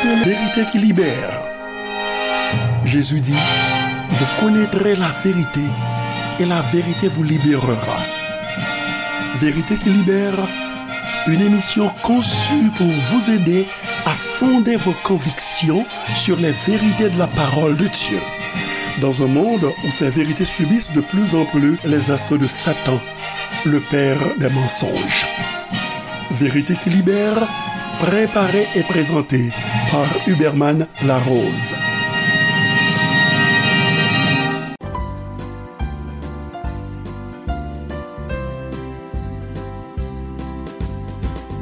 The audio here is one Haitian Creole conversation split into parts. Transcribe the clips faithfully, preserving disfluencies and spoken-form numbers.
Vérité qui libère. Jésus dit, vous connaîtrez la vérité et la vérité vous libérera. Vérité qui libère, une émission conçue pour vous aider à fonder vos convictions sur les vérités de la parole de Dieu. Dans un monde où ces vérités subissent de plus en plus les assauts de Satan, le père des mensonges. Vérité qui libère, préparée et présentée par Huberman Larose.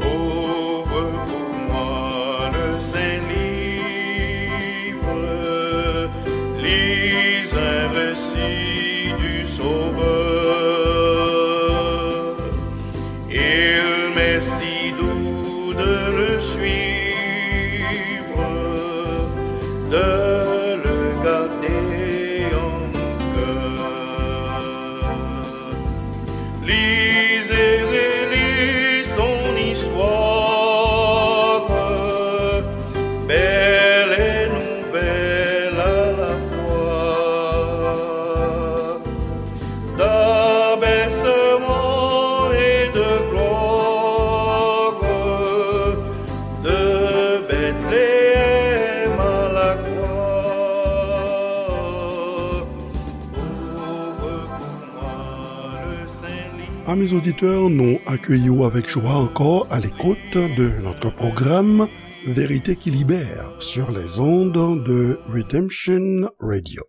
Ouvre pour moi le Saint-Livre, lis un récit du Sauveur. Il m'est si doux de le suivre, de le garder en mon cœur. Lis et relis son histoire, belle et nouvelle à la fois. D'abaissement et de gloire, de Bethléem à la croix. Ouvre pour moi le Saint-Livre. Amis auditeurs, nous accueillons avec joie encore à l'écoute de notre programme Vérité qui libère sur les ondes de Redemption Radio.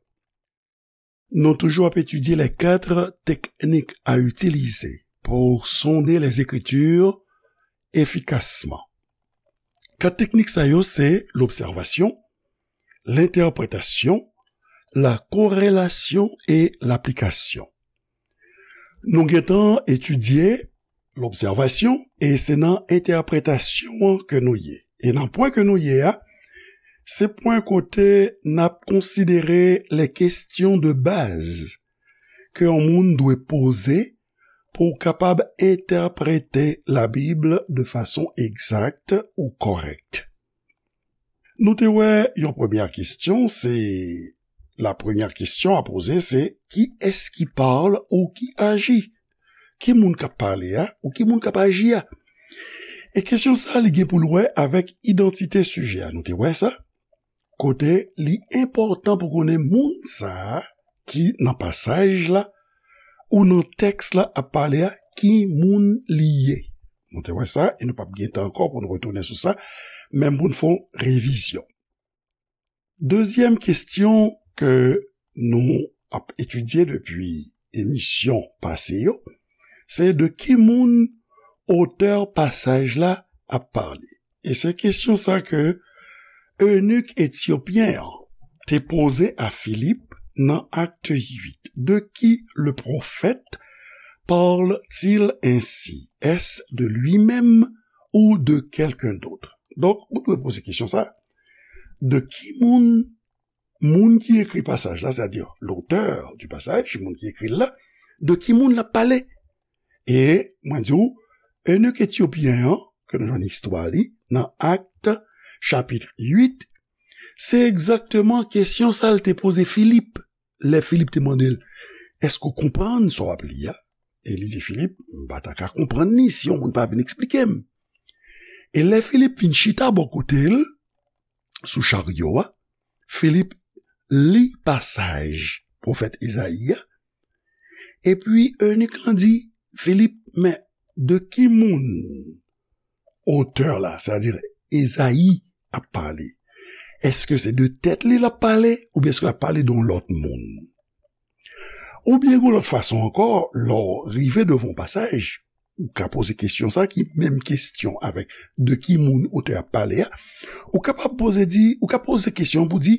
Nou toujou ap etidye les quatre techniques à utiliser pour sonder les Écritures efficacement. Kat teknik sa yo se lobsèvasyon, lentèpretasyon, la korelasyon e laplikasyon. Nou gentan etidye lobsèvasyon, e se nan entèpretasyon an ke nou ye. E nan pwen ke nou ye a, se pwen kote n ap konsidere les questions de base ke yon moun dwe poze pou w kapab entèprete Labib de fason egzak ou kòrèk. Nou te wè yon premyè kesyon, se, la première question à poser, c'est qui est-ce qui parle ou qui agit? Ki moun k ap pale a, ou ki moun k ap aji a? E kesyon sa a, li gen pou l wè avèk idantite sijè a. Nou te wè sa? Kote li enpòtan pou konnen moun sa a ki nan pasaj la ou nan tèks la ap pale a, ki moun li ye. Nou te wè sa, e nou p ap gen tan ankò pou nou retounen sou sa, menm pou n fè yon revizyon. Dezyèm kesyon ke nou ap etidye depi emisyon pase yo, se de ki moun otè pasaj la ap pale. E se kesyon sa ke enik etyopyen an te poze a Filip nan Acte huit. De qui le prophète parle-t-il ainsi? Est-ce de lui-même ou de quelqu'un d'autre? Donk, ou dwe poze kesyon sa. De ki moun, moun ki ekri pasaj la, c'est-à-dire l'auteur du passage, moun ki ekri l la, de ki moun l ap pale? E mwen di w, enik etyopyen an, ke nou jwenn istwa li nan Acte chapitre huit, se egzakteman kesyon sa l te poze Filip. Lè Filip te mande l, èske w konprann sa w ap li a? E li di Filip, m pa ta ka konprann li si yon moun pa vin eksplike m. E lè Filip vin chita bò kote l, sou charyo a, Filip li pasaj pwofèt Ezayi a, epi enik lan di Filip, men de ki moun otè la, sètadi Ezayi, ap pale? Èske se de tèt li l ap pale, oubyen èske l ap pale de yon lòt moun? Oubyen, yon lòt fason ankò, lè w rive devan yon pasaj, ou ka poze kesyon sa ki menm kesyon avèk de ki moun otè ap pale a, ou kapab poze di, ou ka poze kesyon pou di,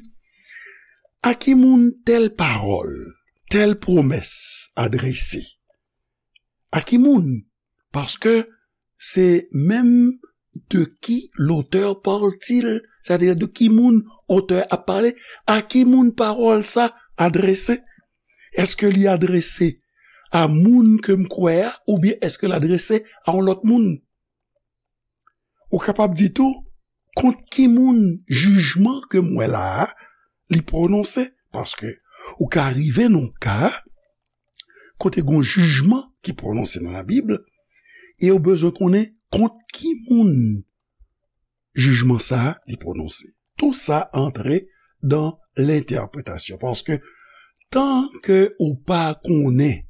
a ki moun tèl pawòl, tèl pwomès adrese? A ki moun? Paske se menm de qui l'auteur parle-t-il, sètadi de ki moun otè ap pale, a ki moun pawòl sa adrese? Èske li adrese a moun ke m kwè a, oubyen èske l adrese a yon lòt moun? Ou kapab di tou, kont ki moun jijman ke m wè la a, li pwononse. Paske ou ka rive nan ka kote gon jijman ki pwononse nan Labib, e ou bezwen konnen kont ki moun jijman sa a li pwononse. Tou sa antre dan lentèpretasyon. Paske tan ke ou pa konnen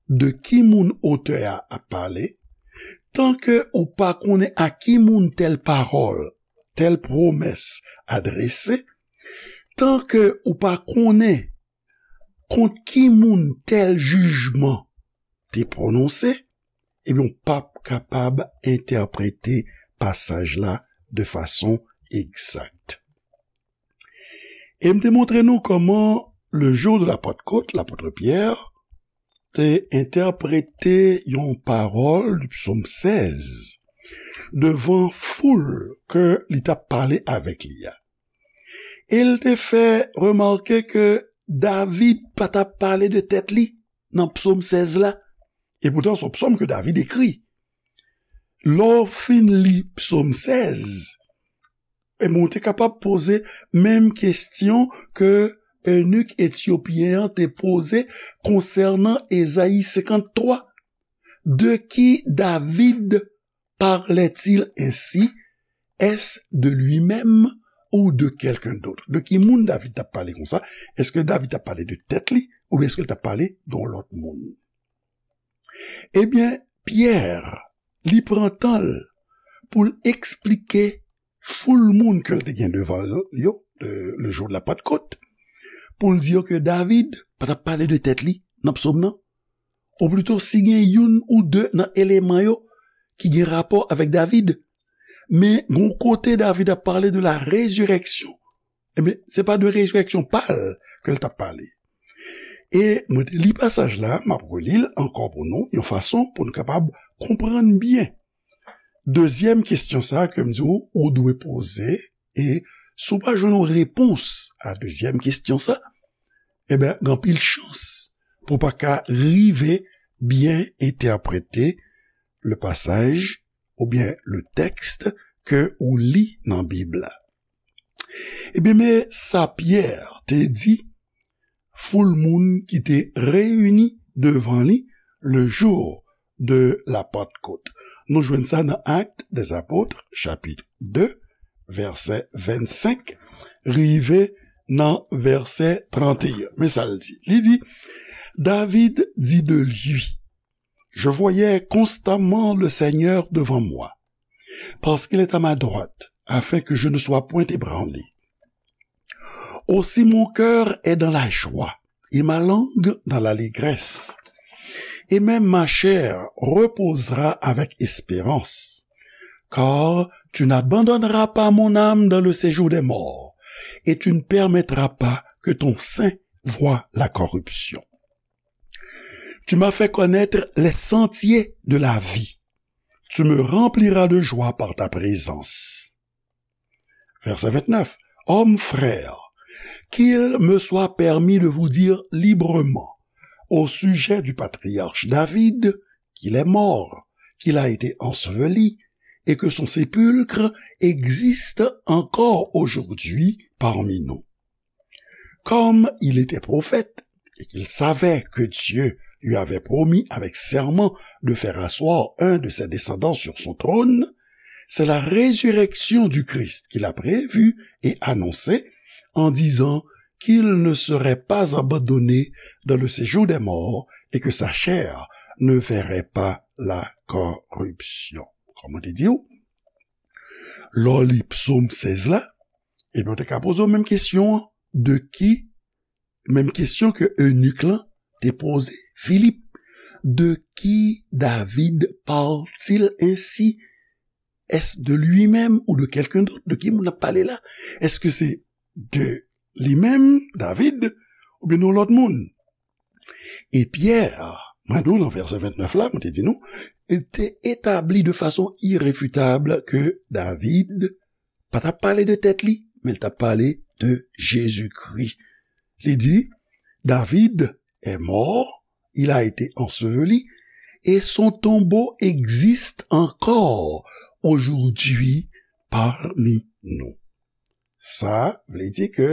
de ki moun otè a ap pale, tan ke ou pa konnen a ki moun tèl pawòl, tèl pwomès adrese, tan ke ou pa konnen kont ki moun tèl jijman te pwononse, ebyen, w p ap kapab entèprete pasaj la de fason egzak. E m te montre nou kòman le jour de la Pentecôte, lapòt Pyè te entèprete yon pawòl du psaume seize devan foul ke li t ap pale avèk li a. E l te fè remake ke David pa t ap pale de tèt li nan psaume seize la. E poutan, se yon psaume ke David ekri. Lè w fin li psaume seize, e bon, ou te kapab poze menm kesyon ke eunik etyopyen an te poze konsènan Ezayi senkanntwa. De qui David parlait-il ainsi? Est-ce de lui-même ou de quelqu'un d'autre? De ki moun David t ap pale konsa? Èske David t ap pale de tèt li, oubyen èske l t ap pale de yon lòt moun? Ebyen, Pyè, li pran tan l pou l eksplike foul moun ke l te gen devan l yo, le, le jour de la Pentecôte, pou l di yo ke David pa t ap pale de tèt li nan psaume nan. Ou plito, si gen youn ou de nan eleman yo ki gen rapò avèk David, men gon kote David ap pale de la résurrection. Ebyen, se pa de rezirèksyon pa l ke l t ap pale. E mwen te li pasaj la, m ap reli l ankò pou nou, yon fason pou nou kapab konprann byen. Dezyèm kesyon sa ke m di w, ou dwe poze, e si w pa jwenn yon repons a dezyèm kesyon sa, ebyen, gen anpil chans pou w pa ka rive byen entèprete le pasaj oubyen le tèks ke ou li nan Bib la. Ebyen, men sa Pyè te di foul moun ki te reyini devan li le jour de la Pentecôte. Nou jwenn sa nan Actes des Apôtres, chapit de, vèsè vennsenk, rive nan vèsè tranteyen. Men sa l di. Li di, David dit de lui, Je voyais constamment le Seigneur devant moi, parce qu'il est à ma droite, afin que je ne sois point ébranlé. Aussi mon cœur est dans la joie, et ma langue dans l'allégresse. Et même ma chair reposera avec espérance, car tu n'abandonneras pas mon âme dans le séjour des morts, et tu ne permettras pas que ton saint voie la corruption. Tu m'as fait connaître les sentiers de la vie. Tu me rempliras de joie par ta présence. Verset vingt-neuf. Hommes, frères, qu'il me soit permis de vous dire librement au sujet du patriarche David, qu'il est mort, qu'il a été enseveli, et que son sépulcre existe encore aujourd'hui parmi nous. Comme il était prophète et qu'il savait que Dieu lui avait promis avec serment de faire asseoir un de ses descendants sur son trône, c'est la résurrection du Christ qu'il a prévue et annoncée en disant qu'il ne serait pas abandonné dans le séjour des morts et que sa chair ne verrait pas la corruption. Kòman te di w? Lè w li psaume seize la, ebyen, ou te ka poze w menm kesyon an, de ki, menm kesyon ke eunik lan te poze Filip, de qui David parle-t-il ainsi? Est-ce de lui-même ou de quelqu'un d'autre? De ki moun ap pale la? Èske se de li menm, David, oubyen yon lòt moun? E Pyè, mwen di w nan vèsè vennèf la, mwen te di nou, li te etabli de fason irefitab ke David pa t ap pale de tèt li, men li t ap pale de Jezikri. Li di, David est mort, il a été enseveli, et son tombeau existe encore aujourd'hui parmi nous. Sa vle di ke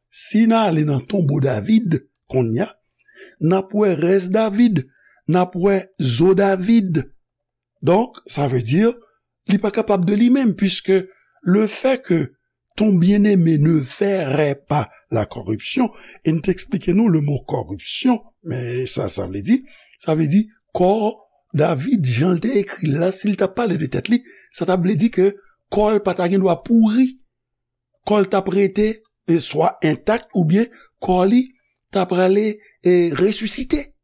si n ale nan tonbo David kounye a, n ap wè rès David, n ap wè zo David. Donk, sa vle di, li pa kapab de li menm, puisque le fait que ton bien-aimé ne verrait pas la corruption, e n te eksplike nou le mo corruption, men sa, sa vle di, sa vle di, kò David, jan l te ekri l la, si l t ap pale de tèt li, sa t ap vle di ke kò l pa ta gen dwa pouri, kò l t ap rete, e, swa entak, oubyen kò li ta prale, e, resisite.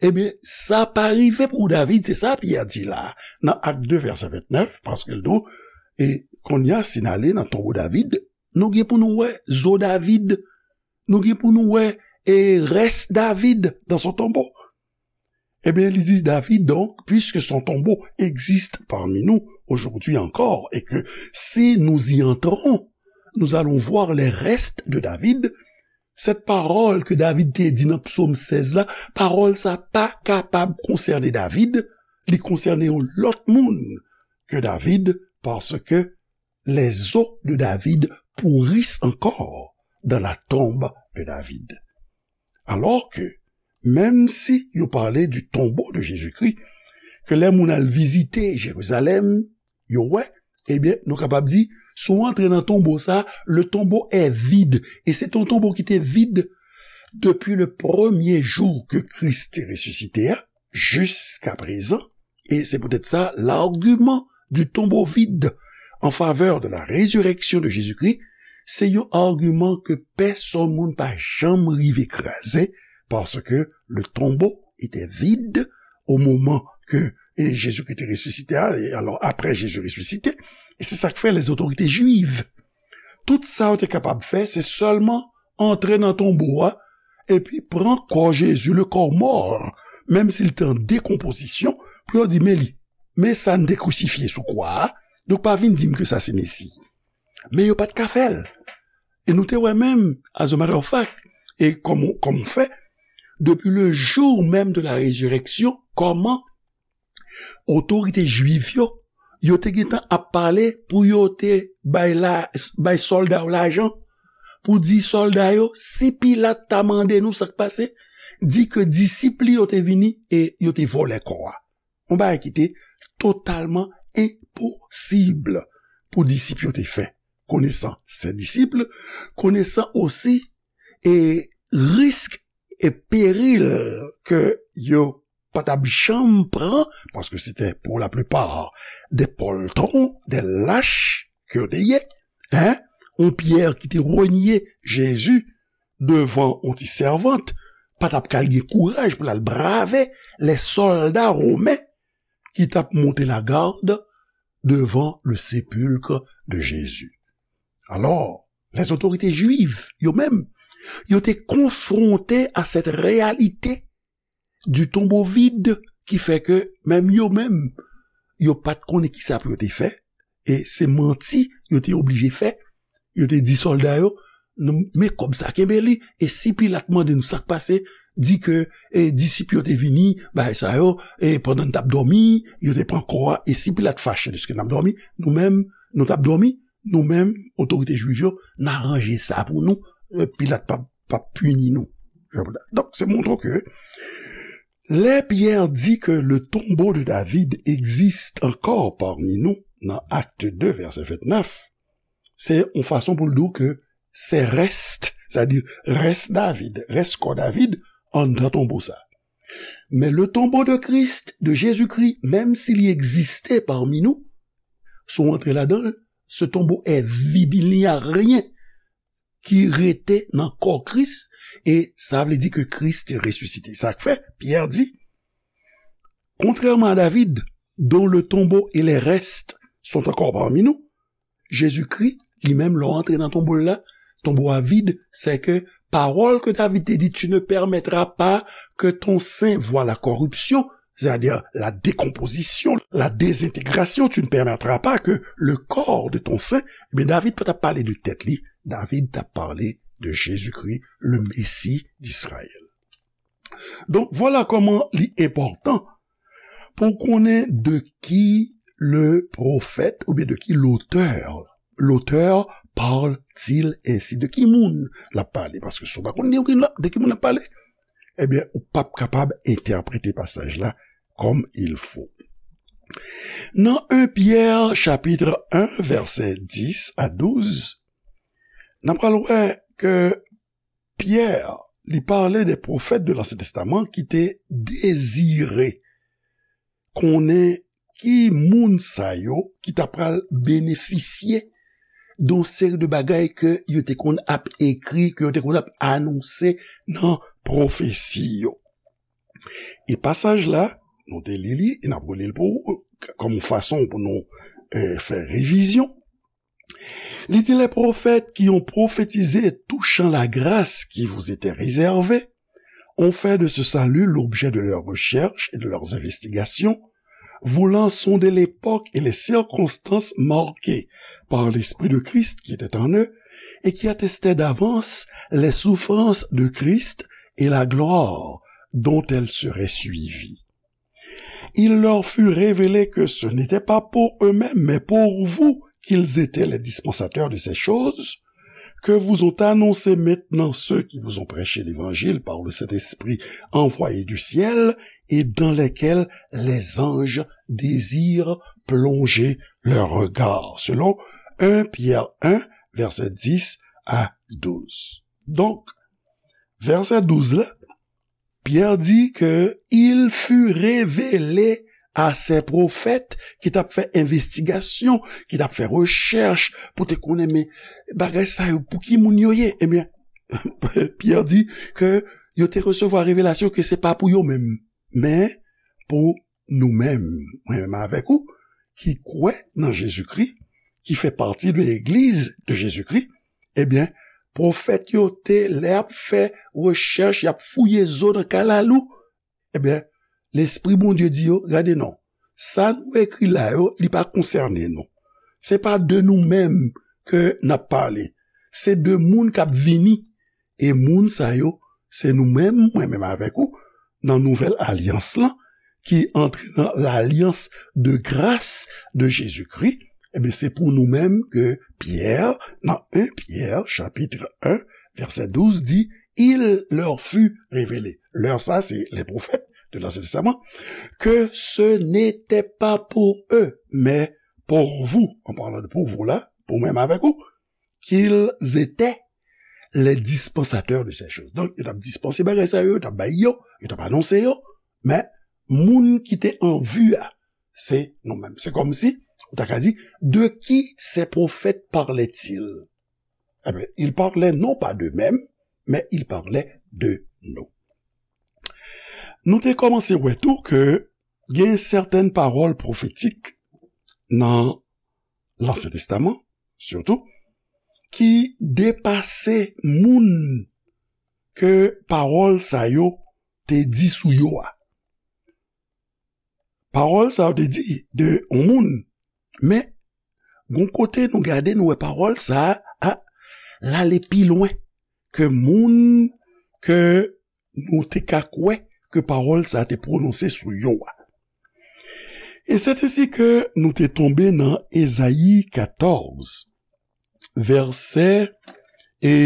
Ebyen, sa pa rive pou David, se sa Pyè di la, nan Ak de, vèsè vennèf, paske l di, e kounye a, si n ale nan tonbo David, nou gen pou nou wè zo David, nou gen pou nou wè, e, rès David dans son tombeau. Eh bien, il dit David, donc, puisque son tombeau existe parmi nous aujourd'hui encore, et que si nous y entrons, nous allons voir les restes de David, cette parole que David te di nan Psaume seize la, parole sa pa kapab konsène David, li konsène yon lòt moun ke David, parce que les os de David pourrissent encore dans la tombe de David. Alors que, menm si yo pale du tombeau de Jésus-Christ, ke lè moun al vizite Jerizalèm, yo wè, ebyen, nou kapab di, si w antre nan tonbo sa, le tombeau est vide. E se te yon tonbo ki te vid depi le premye jou ke Kris te resisite a, jiska prezan. E se poutèt sa, l'argument du tombeau vide en faveur de la résurrection de Jésus-Christ, se yon agiman ke pèsonn moun pa janm rive kraze, paske le tombeau était vide au moment que, e, Jésus-Christ te resisite a, e alò, apre Jezi resisite, e se sa k fè lèzotorite jwiv, tout sa yo te kapab fè, se sèlman antre nan tonbo a, epi pran kò Jezi, le corps mort, menm si l te an dekonpozisyon, pou yo di, men li, men sa n te krisifye sou kwa a, donk pa vin di m ke sa se Mesi. Men yo pa t ka fè l. E nou te wè menm, as a matter of fact, e kòm, kòm fè, depuis le jour même de la résurrection, kòman otorite jwiv yo, yo te gentan ap pale pou yo te bay la, bay sòlda yo lajan, pou di sòlda yo, si Pilat ta mande nou sa k pase, di ke disip li yo te vini e yo te vòlè kò a. Yon bagay ki te totalman enposib pou disip yo te fè, konesan se disip, konesan osi e risk e peril ke yo pa t ap janm pran, paske se te pour la plupart des poltrons, des lâches ke yo te ye, hein? Yon Pyè ki te renye Jezi devan yon ti sèvant, pa t ap kal gen kouraj pou l al brave lè sòlda women ki t ap monte lagad devan le sépulcre de Jésus. Alò, lèzotorite jwiv, yo menm, yo te konfwonte a sèt reyalite du tombeau vide ki fè ke menm yo menm, yo pa t konnen kisa pou yo te fè, e se manti yo te oblije fè. Yo te di sòlda yo, "Nou, men kòb sa, kenbe li, e si Pilat mande nou sa k pase, di ke, e, disip yo te vini, bagay sa yo, e pandan n t ap dòmi, yo te pran kò a, e si Pilat fache dèske n ap dòmi, nou menm, nou t ap dòmi, nou menm, otorite jwiv yo, n aranje sa pou nou, e, Pilat p ap, p ap pini nou." Donk, se montre ke lè Pyè di ke le tombeau de David existe encore parmi nous, nan Acte deux, verset vingt-neuf, se yon fason pou l di w ke se rès, sètadi rès David, rès kò David, anndan tonbo sa. Men le tombeau de Christ, de Jésus-Christ, menm si li egziste parmi nous, si w antre ladan l, ce tombeau est vide, il n'y a rien ki rete nan kò Kris, e sa vle di ke Kris te resisite. Sa k fè, Pyè di, contrairement à David, dont le tombeau et les restes sont encore parmi nous, Jezikri, li menm, lè w antre nan tonbo l la, tonbo a vid, se ke pawòl ke David te di, tu ne permettras pas que ton saint voie la corruption, c'est-à-dire la décomposition, la désintégration, tu ne permettras pas que le corps de ton saint, ebyen, David pa t ap pale de tèt li, David t ap pale de Jezikri, le Messie d'Israël. Donk, vwala kòman li enpòtan pou w konnen de ki le prophète, oubyen de qui l'auteur, l'auteur parle-t-il ainsi? De ki moun l ap pale? Paske si w pa konn de ki, de ki moun l ap pale, ebyen, ou p ap kapab entèprete pasaj la comme il faut. Nan un Pierre chapitre un, vèsè dis a douz, n ap pral wè ke Pyè, li pale de pwofèt de Lansyen Testaman ki te dezire konnen ki moun sa yo ki ta pral benefisye de yon seri de bagay ke yo te konn ap ekri, ke yo te konn ap anonse nan pwofesi yo. E pasaj la, nou te li li, e n ap reli l pou ou, kòm yon fason pou nou, eh, fè revizyon. Li di, les prophètes qui ont prophétisé touchant la grâce qui vous était réservée ont fait de ce salut l'objet de leurs recherches et de leurs investigations, voulant sonder l'époque et les circonstances marquées par l'Esprit de Christ qui était en eux et qui attestaient d'avance les souffrances de Christ et la gloire dont elles seraient suivies. Il leur fut révélé que ce n'était pas pour eux-mêmes, mais pour vous qu'ils étaient les dispensateurs de ces choses, que vous ont annoncé maintenant ceux qui vous ont prêché l'évangile par le Saint-Esprit envoyé du ciel, et dans lesquels les anges désirent plonger leurs regards, selon un Pierre un, verset dix à douze. Donk, vèsè douz la, Pyè di ke il fut révélé à ces prophètes ki t ap fè envestigasyon, ki t ap fè rechèch pou te konnen, men bagay sa yo, pou ki moun yo ye? Ebyen, Pyè di ke yo te resevwa revelasyon ke se pa pou yo menm, men pou nou menm, mwen menm avèk ou, ki kwè nan Jezikri, ki fè pati de legliz de Jezikri, ebyen, pwofèt yo te, lè y ap fè rechèch, y ap fouye zo nan kalalou, ebyen, Lespri Bondye di yo, gade non, sa nou ekri la yo, li pa konsène nou. Se pa de nou menm ke n ap pale. Se de moun k ap vini. E moun sa yo, se nou menm, mwen menm avèk ou, nan nouvèl alyans lan, ki antre nan lalyans de gras de Jezikri, ebyen, se pou nou menm ke Pyè, nan un Pyè, chapitre un, vèsè douz, di, il leur fut révélé. Leur sa, se les prophètes de l'Ancien Testament, que ce n'était pas pour eux, mais pour vous, en parlant de pour vous la, pou mwen menm avèk ou, qu'ils étaient les dispensateurs de ces choses. Donk, yo t ap dispanse bagay sa yo, yo t ap bay yo, yo t ap anonse yo, men moun ki te an vi a, se nou menm. Se kòmsi, ou ta ka di, de qui ces prophètes parlaient-ils? Ebyen, ils parlaient non pas d'eux-mêmes, mais ils parlaient de nous. Nou te kòmanse wè tou ke gen sèten pawòl pwofetik nan Lansyen Testaman, sitou, ki depase moun ke pawòl sa yo te di sou yo a. Pawòl sa yo te di de yon moun, men gon kote nou gade, nou wè pawòl sa a, a, l ale pi lwen ke moun ke nou te ka kwè ke pawòl sa a te pwononse sou yo a. E se te si ke nou te tonbe nan Ezayi katòz, vèsè e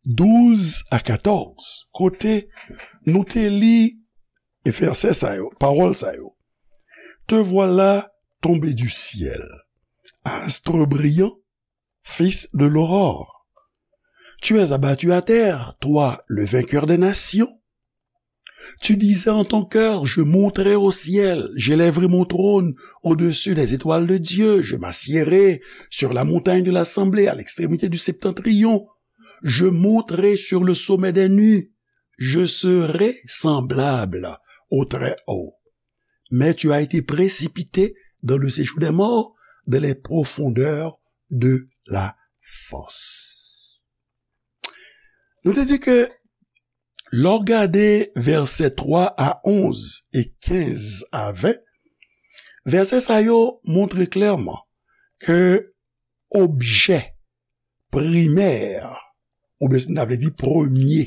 douz a katòz, kote nou te li e vèsè sa yo, pawòl sa yo. Te voilà tombé du ciel, astre brillant, fils de l'aurore. Tu es abattu à terre, toi, le vainqueur des nations. Tu disais en ton cœur, je monterai au ciel, j'élèverai mon trône au-dessus des étoiles de Dieu, je m'assiérai sur la montagne de l'assemblée à l'extrémité du septentrion, je monterai sur le sommet des nues, je serai semblable au Très-Haut. Mais tu as été précipité dans le séjour des morts, dans les profondeurs de la fosse. Nou te di ke lè w gade vèsè twa a onz e kenz a ven, vèsè sa yo montre klèman ke objè primè, oubyen si n ta vle di premye,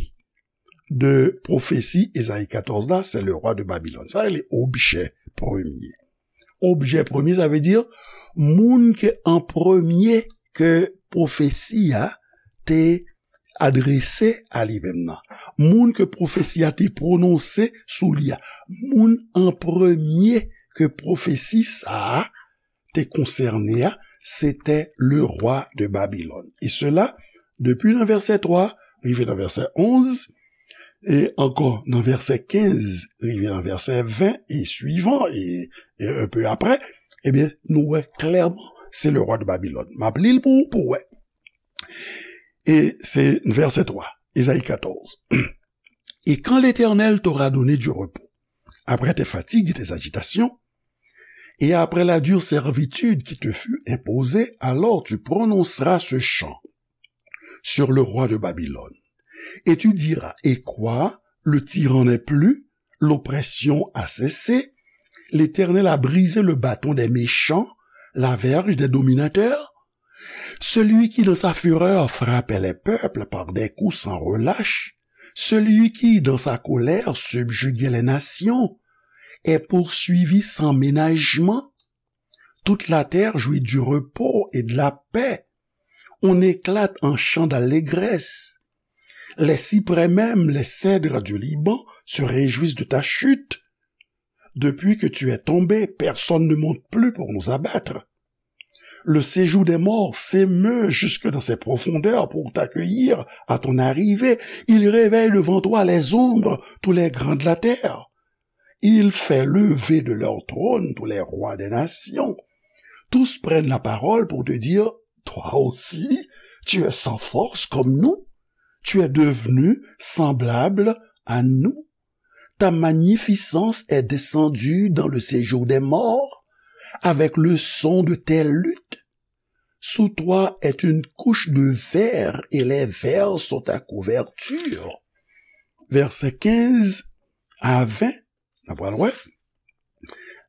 de pwofesi Ezayi katòz la, se le rwa de Babilòn. Sa rele objè premye. objè premye, sa vle di moun ke an premye ke pwofesi a te adrese a li menm nan. Moun ke pwofesi a te pwononse sou li a. Moun an premye ke pwofesi sa a te konsène a, c'était le roi de Babylone. E sela, depi nan vèsè twa, rive nan vèsè onz, e ankò nan vèsè kenz, rive nan vèsè ven e swivan, e, e un peu après, ebyen, nou wè klèman, se le roi de Babylone. M ap li l pou ou, pou w wè. E se vèsè twa, Ezayi katòz. Et quand l'Éternel t'aura donné du repos, après tes fatigues et tes agitations, et après la dure servitude qui te fut imposée, alors tu prononceras ce chant sur le roi de Babylone. Et tu diras, et quoi, le tyran n'est plus, l'oppression a cessé, l'Éternel a brisé le bâton des méchants, la verge des dominateurs. Celui qui dans sa fureur frappait les peuples par des coups sans relâche, celui qui dans sa colère subjuguait les nations, est poursuivi sans ménagement. Toute la terre jouit du repos et de la paix. On éclate en chant d'allégresse. Les cyprès même, les cèdres du Liban se réjouissent de ta chute. Depuis que tu es tombé, personne ne monte plus pour nous abattre. Le séjour des morts s'émeut jusque dans ses profondeurs pour t'accueillir à ton arrivée. Il réveille devant toi les ombres, tous les grands de la terre. Il fait lever de leur trône tous les rois des nations. Tous prennent la parole pour te dire, toi aussi, tu es sans force comme nous. Tu es devenu semblable à nous. Ta magnificence est descendue dans le séjour des morts, avec le son de tes luths. Sous toi est une couche de vers, et les vers sont ta couverture. Vèsè kenz a ven, n ap pral wè.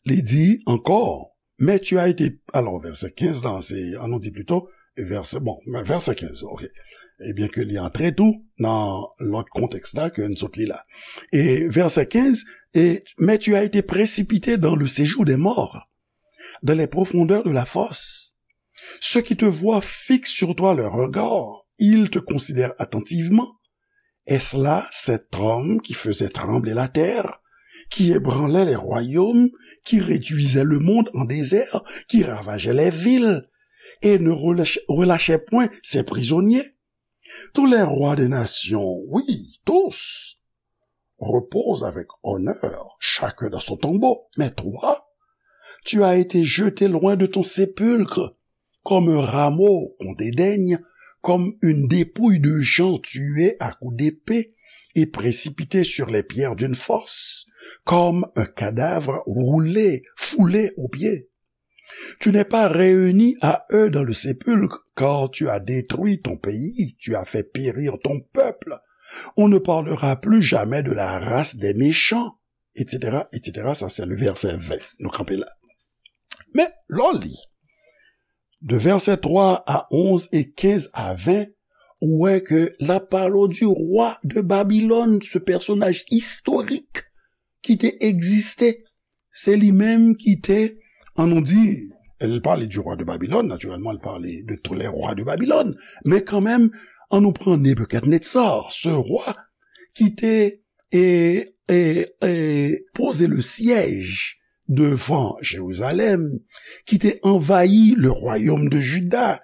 Li di ankò, mais tu as été, alors, vèsè kenz la, se, an nou di plito, vèsè, bon, vèsè kenz, ok. Ebyen ke li antre tou nan lòt kontèks la ke n sot li la. E vèsè kenz, et, mais tu as été précipité dans le séjour des morts, dans les profondeurs de la fosse. Ceux qui te voient fixent sur toi leur regard, ils te considèrent attentivement. Est-ce là cet homme qui faisait trembler la terre, qui ébranlait les royaumes, qui réduisait le monde en désert, qui ravageait les villes, et ne relâch-, relâchait point ses prisonniers? Tous les rois des nations, oui, tous, reposent avec honneur, chacun dans son tombeau. Mais toi, tu as été jeté loin de ton sépulcre, comme un rameau qu'on dédaigne, comme une dépouille de gens tués à coups d'épée et précipités sur les pierres d'une fosse, comme un cadavre roulé, foulé aux pieds. Tu n'es pas réuni à eux dans le sépulcre, car tu as détruit ton pays, tu as fait périr ton peuple. On ne parlera plus jamais de la race des méchants, et cetera, et cetera. Sa se le vèsè ven. Nou kanpe la. Men, lè w li, de vèsè twa a onz e kenz a ven, ou wè ke l ap pale w du roi de Babylone, ce personnage historique ki te egziste. Se li menm ki te, an nou di, l pale du roi de Babylone, naturellement, l pale de tous les rois de Babylone. Men kanmenm, an nou pran Nebukadnezar, ce roi ki te, e, e, e, poze le siège devant Jérusalem, ki te anvayi le royaume de Juda,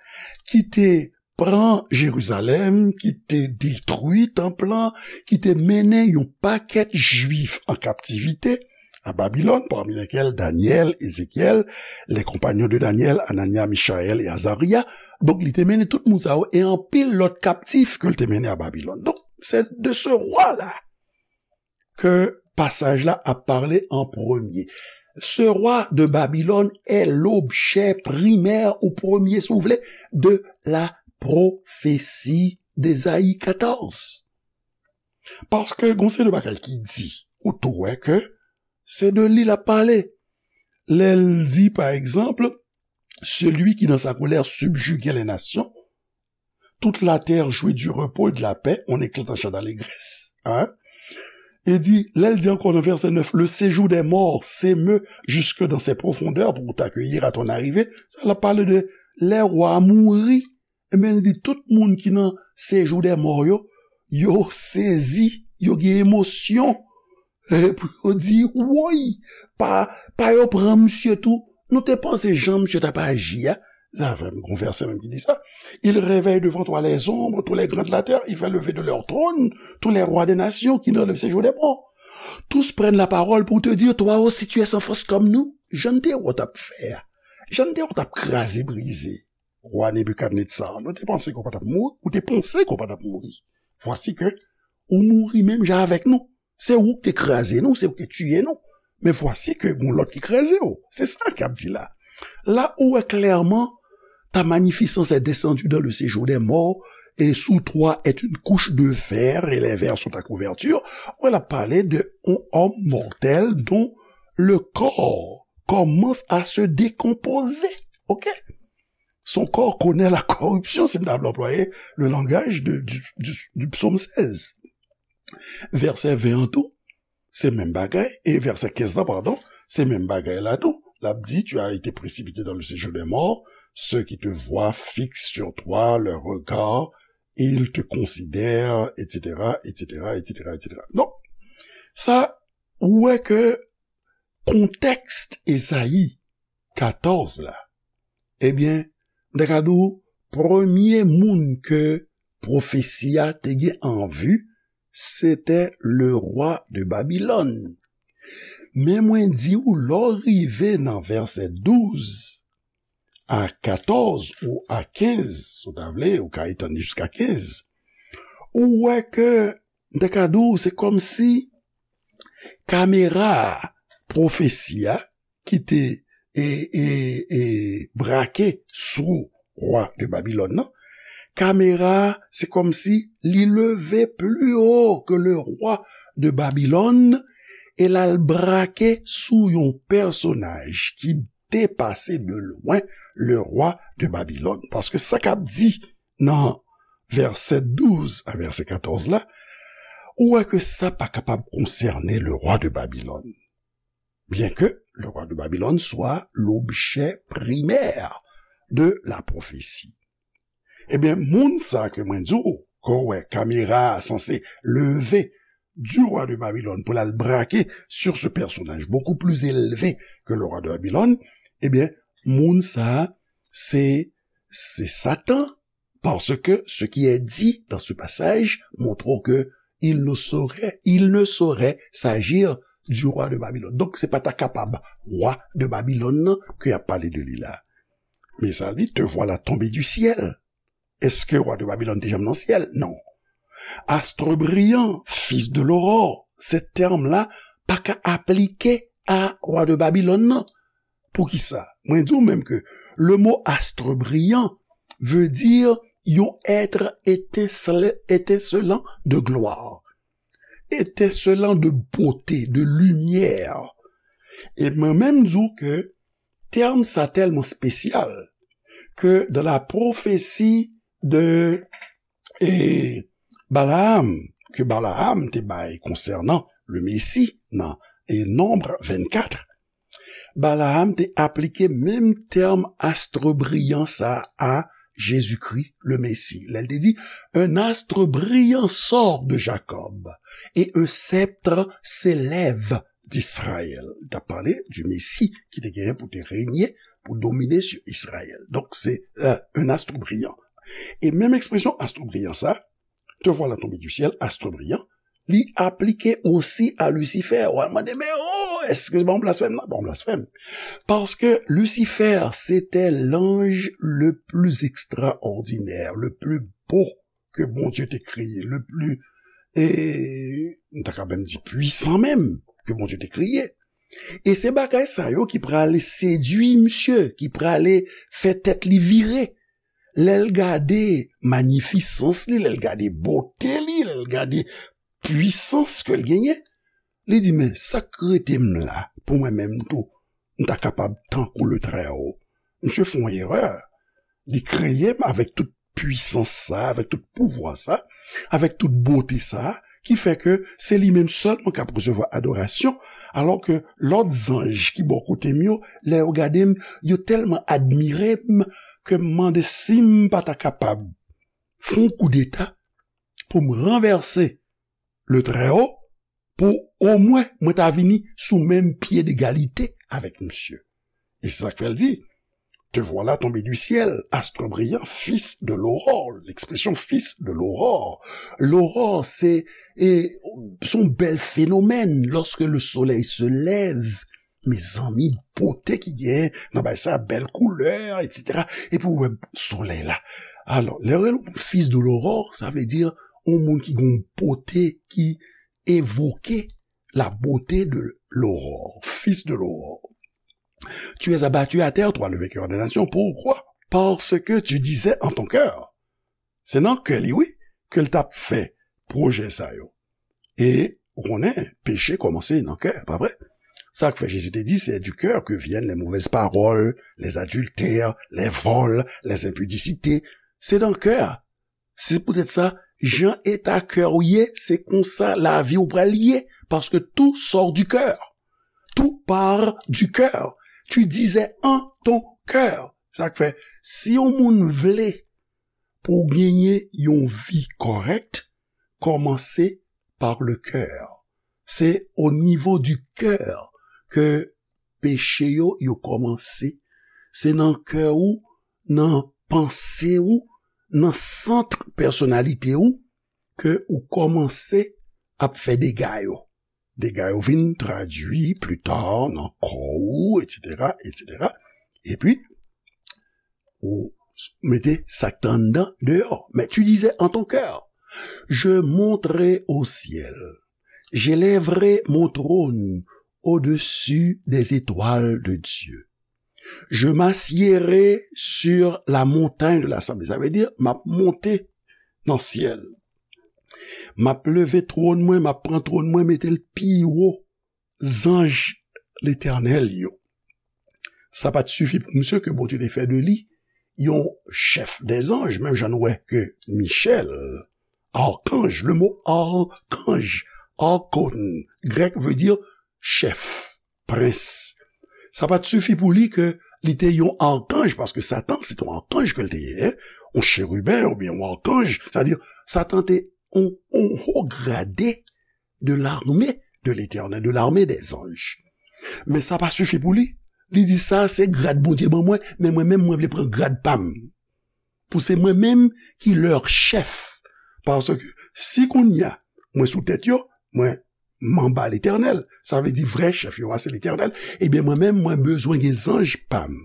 ki te pran Jerizalèm, ki te detwi tanp lan, ki te mennen yon pakèt Jwif an kaptivite a Babilòn, parmi lesquels Daniel, Ézéchiel, les compagnons de Daniel, Anania, Michayèl e Azarya. Donk, li te mennen tout moun sa yo e anpil lòt kaptif ke l te mennen a Babilòn. Donk, se de ce roi-là ke pasaj la ap pale an premye. Ce roi de Babylone est l'objet primaire ou premier, si vous voulez, de la prophétie d'Ésaïe quatorze. Paske gon seri de bagay ki di, ou tou wè ke se de li l ap pale. Lè l di, pa egzanp, celui qui dans sa colère subjuguait les nations, toute la terre jouit du repos et de la paix, on éclate en chant d'allégresse. Hein? E di, lè l di ankò nan vèsè nèf, le séjour des morts s'émeut jusque dans ses profondeurs pour t'accueillir à ton arrivée, sa l ap pale de lè wa a mouri. Ebyen, l di tout moun ki nan séjour des morts yo, yo sezi, yo gen emosyon. E pou yo di, woy, pa, pa yo pran misye tou. Nou te panse jan misye t ap aji a. Sa fè m gon vèsè menm ki di sa. Il réveille devant toi les ombres, tous les grands de la terre, il fait lever de leur trône tous les rois des nations qui dans le séjour des morts. Tous prennent la parole pour te dire, toi aussi tu es sans force comme nous. Jan n te wè w t ap fè a. Jan n te wè w t ap kraze brize. Wa Nebikadnetsar, nou te panse ke w pa t ap mouri, ou te panse ke w pa t ap mouri. Vwasi ke ou mouri menm jan avèk nou. Se ou ki te kraze nou, se ou ki te tiye nou. Men vwasi ke gon lòt ki kraze w. Se sa k ap di la. La ou wè klèman, ta magnificence est descendue dans le séjour des morts, et sous toi est une couche de vers, et les vers sont ta couverture. Ou wè l ap pale de yon homme mortel dont le corps commence à se décomposer. Ok? Son corps connaît la corruption, si m ta vle anplwaye le langaj de, du, du, du psaume seize. Vèsè ven an tou, se menm bagay, e vèsè kenz lan, padon, se menm bagay la tou. L ap di, tu as été précipité dans le séjour des morts, ceux qui te voient fixent sur toi leur regard, et ils te considèrent, et cetera, et cetera, et cetera, et cetera. Donk, sa, ou wè ke kontèks Ezayi katòz la, ebyen, m ta ka di w, premye moun ke pwofesi a te gen an vi, se te le rwa de Babilòn. Men mwen di w, lè w rive nan vèsè douz a katòz ou a kenz, si w ta vle, ou ka etann li jiska kenz, ou wè ke, m ta ka di w, se kòmsi kamera pwofesi a ki te, e, e, e, brake sou wa de Babilòn nan, kamera, se kòmsi li leve pli wo ke le rwa de Babilòn, e l al brake sou yon pèsonaj ki depase de lwen le rwa de Babilòn. Paske sa k ap di nan vèsè douz a vèsè katòz la, ou wè ke sa pa kapab konsène le rwa de Babilòn. Bien que le roi de Babylone soit l'objet primaire de la prophétie. Ebyen, moun sa ke mwen di w, ke w wè kamera a sanse leve du roi de Babylone pou l al brake sur ce personnage beaucoup plus élevé que le roi de Babylone, ebyen, moun sa, se, se Satan, parce que ce qui est dit dans ce passage montre que il ne saurait, il ne saurait s'agir du roi de Babylone. Donk, se pa ta kapab wa de Babilòn nan ke y ap pale de li la. Men sa li, te voilà tombé du ciel. Èske wa de Babilòn te janm nan syèl? Non. Astre brillant, fils de l'aurore, se tèm la pa ka aplike a wa de Babilòn nan. Poukisa? Mwen di w menm ke le mo astre brillant veut dire yon être étincel-, étincelant de gloire, étincelant de beauté, de lumière. E mwen menm di w ke tèm sa tèlman espesyal ke dans la prophétie de, e, Balaam, ke Balaam te bay konsènan le Messie nan, e, Nonb vennkat, Balaam te aplike menm tèm astre brillant sa a Jésus-Christ, le Messie. Lè l te di, un astre brillant sort de Jacob et un sceptre s'élève d'Israël. L t ap pale du Messie ki te genyen pou te renye, pou domine sur Israël. Donk, se, euh, un astre brillant. E menm ekspresyon astre brillant sa, te voilà tombé du ciel, astre brillant, li aplike osi a Lisifè. W a mande, men oh, èske se pa yon blasfèm la? Pa yon blasfèm. Parce que Lucifer, c'était l'ange le plus extraordinaire, le plus beau que Bondye te kreye, le plus, e, m ta ka menm di pwisan menm, ke Bondye te kreye. E se bagay sa yo ki prale sedui misye, ki prale fè tèt li vire. Lè l gade manifisans li, lè l gade bote li, lè l gade pwisans ke l genyen, li di, men sa k rete m la pou mwen menm tou, m ta kapab tankou le Très Haut. Misye fè yon erè. Li kreye m avèk tout pwisans sa, avèk tout pouvwa sa, avèk tout bote sa, ki fè ke se li menm sèlman k ap resevwa adorasyon, alò ke lòt zanj ki bò kote m yo, lè yo gade m, yo tèlman admire m ke m mande si m pa ta kapab fè yon koudeta pou m ranvèse le Trèwo, pou omwen mwen ta vini sou menm pye degalite avèk misye. E se sa k fè l di, te voilà tombé du ciel, astre brillant, fils de l'aurore. L'expression fils de l'aurore. L'aurore, se, e, se yon bèl fenomèn. Lorsque le soleil se lève, mezanmi, bote ki gen nan bagay sa, bèl koulè, et cetera. Epi w wè solèy la. Alò, lè yo rele yon moun fils de l'aurore, sa vle di yon moun ki gen yon bote ki evoke la beauté de l'aurore, fils de l'aurore. Tu es abattu à terre, toi le vainqueur des nations. Pourquoi? Parce que tu disais en ton cœur. Se nan kè li, wi, ke l t ap fè pwojè sa yo. E, ou konnen, peche kòmanse nan kè, pa vre? Sa k fè Jezi te di, c'est du cœur que viennent les mauvaises paroles, les adultères, les vols, les impudicités. Se nan kè. Se poutèt sa, jan eta kè w ye, se konsa lavi w pral ye, paske tout sort du cœur. Tout part du cœur. Tu disais en ton cœur. Sa k fè, si yon moun vle pou w genyen yon vi kòrèk, kòmanse par le cœur. Se o nivo du cœur ke peche yo, yo kòmanse. Se nan kè ou, nan panse ou, nan sant pèsonalite ou, ke ou kòmanse ap fè dega yo. Dega yo vin tradui pli ta nan kò ou, et cetera, et cetera. Epi, ou mete sa k t anndan deyò. Mais tu disais en ton cœur, je monterai au ciel, j'élèverai mon trône au-dessus des étoiles de Dieu. Je m'assiérai sur la montagne de l'assemblée. Sa vle di, m ap monte nan syèl. M ap leve twòn mwen, m ap pran twòn mwen, mete l pi wo zanj Letènèl yo. Sa pa t sifi pou misye ke Bondye te fè de li yon chèf dèzanj, menm jan nou wè ke Michèl, arkanj, le mo arkanj, archon, grèk, vle di chèf, prens. Sa pa t sifi pou li ke li te yon arkanj, paske Satan, se t yon arkanj ke l te ye, en, yon cheriben oubyen yon arkanj, sa vle di, Satan te yon, yon ho grade de l'armée de l'Éternel, de l'armée des anges. Men sa pa sifi pou li. Li di, sa se grad Bondye ban mwen, men mwen menm, mwen vle pran grad pa m. Pou se mwen menm ki lè chèf. Paske si kounye a, mwen sou tèt yo, mwen m anba Letènèl, sa vle di vrè chèf yo a se Letènèl, ebyen mwen menm, mwen bezwen gen zanj pa m.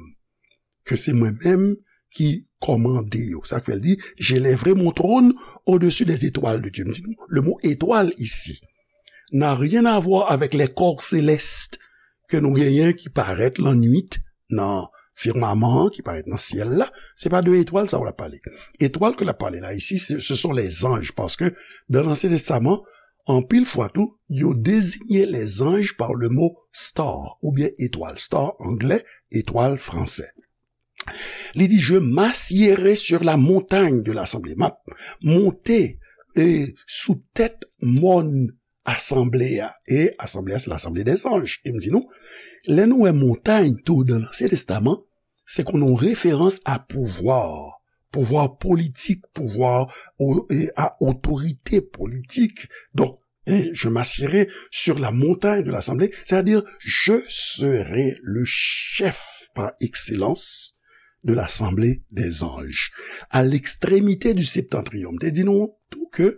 Ke se mwen menm ki kòmande yo. Sa k fè l di, j'élèverai mon trône au-dessus des étoiles de Dieu. M di nou, le mot étoile ici n'a rien à voir avec les corps célestes ke nou genyen ki parèt lannwit nan fimaman an, ki parèt nan syèl la. Se pa de etwal sa w ap pale. Etwal ke l ap pale la isi, se, ce sont les anges, paske dans l'Ancien Testament, anpil fwa tou, yo deziye les anges par le mot star, oubyen etwal. Star anglè, etwal fransè. Li di, je m'assiérai sur la montagne de l'assemblée. M ap monte, e, sou tèt mòn asanble a. E asanble a, se l'assemblée des anges. E m di nou, lè nou wè montay tou dans l'Ancien Testament, se konn yon referans a pouvwa, pouvwa politik, pouvwa o-, e a otorite politik. Donk, e je m'assiérai sur la montagne de l'assemblée, c'est-à-dire je serai le chef par excellence de l'assemblée des anges. À l'extrémité du septentrion. M te di nou tou ke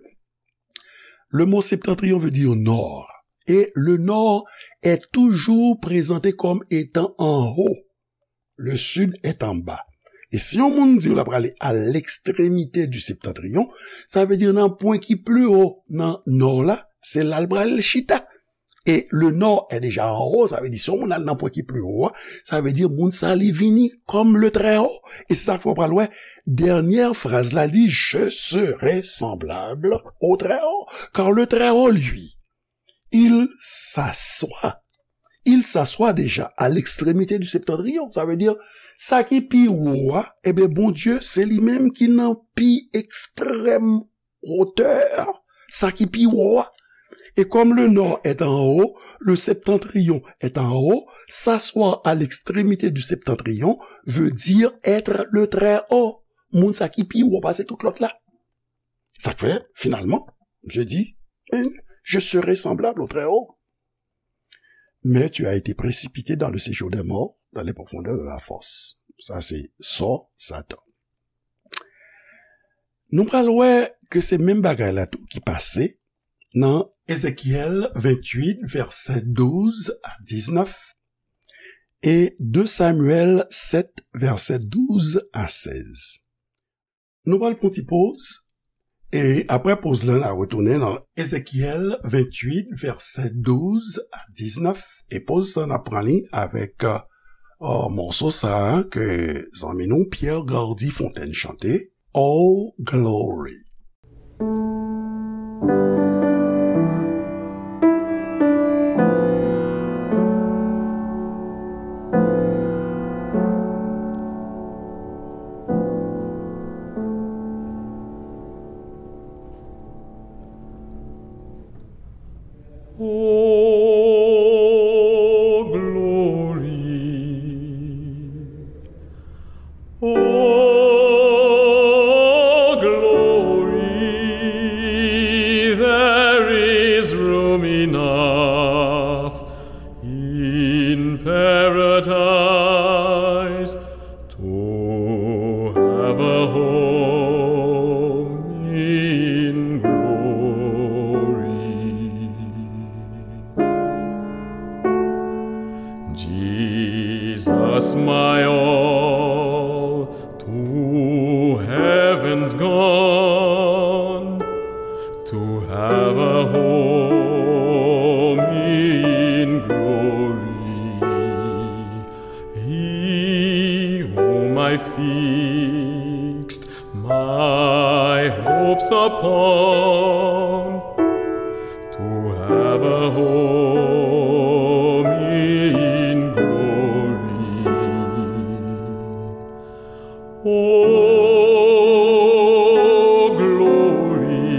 le mot septentrion veut dire nord. Et le nord est toujours présenté comme étant en haut. Le sud est en bas. E si yon moun di w l ap prale à l'extrémité du septentrion, sa vle di nan pwen ki pli wo nan nò la, se la l pral chita. E le nord est déjà en haut, sa vle di si yon moun al nan pwen ki pli wo a, sa vle di moun sa li vini kòm le très haut. E se sa k fè w pral wè, dènyè fraz la di, je serai semblable au très haut. Car le très haut, lui, il s'assoit. Il s'assoit déjà à l'extrémité du septentrion. Sa vle di, sa ki pi wo a, ebyen, Bondye, se li menm ki nan pi ekstrèm wotè. Sa ki pi wo a, Et comme le nord est en haut, le septentrion est en haut, s'asseoir à l'extrémité du septentrion veut dire être le Très-Haut. Moun sa ki pi wo pase tout lòt la. Sa k fè, finalman, je dis, eh, je serai semblable au Très-Haut. Mais tu as été précipité dans le séjour des morts, dans les profondeurs de la fosse. Sa se sò Satan. Nou pral wè ke se menm bagay la tou ki pase nan Ezekyèl venntuit, vèsè douz a diznèf, e de Samyèl sèt, vèsè douz a sèz. Nou pral pran ti poz, e apre poz la, n a retounen nan Ezekyèl venntuit, vèsè douz a diznèf, e poz sa, n ap pran li avèk, euh, mòso sa a ke zanmi nou Pierre Gardy Fontaine chante, All Glory. Oh, glory. Oh, glory, there is room enough in paradise to have a home in glory. Jesus, my all, to heaven's gone, to have a home in glory. He whom I fixed my hopes upon, to have a home in glory. Oh, glory.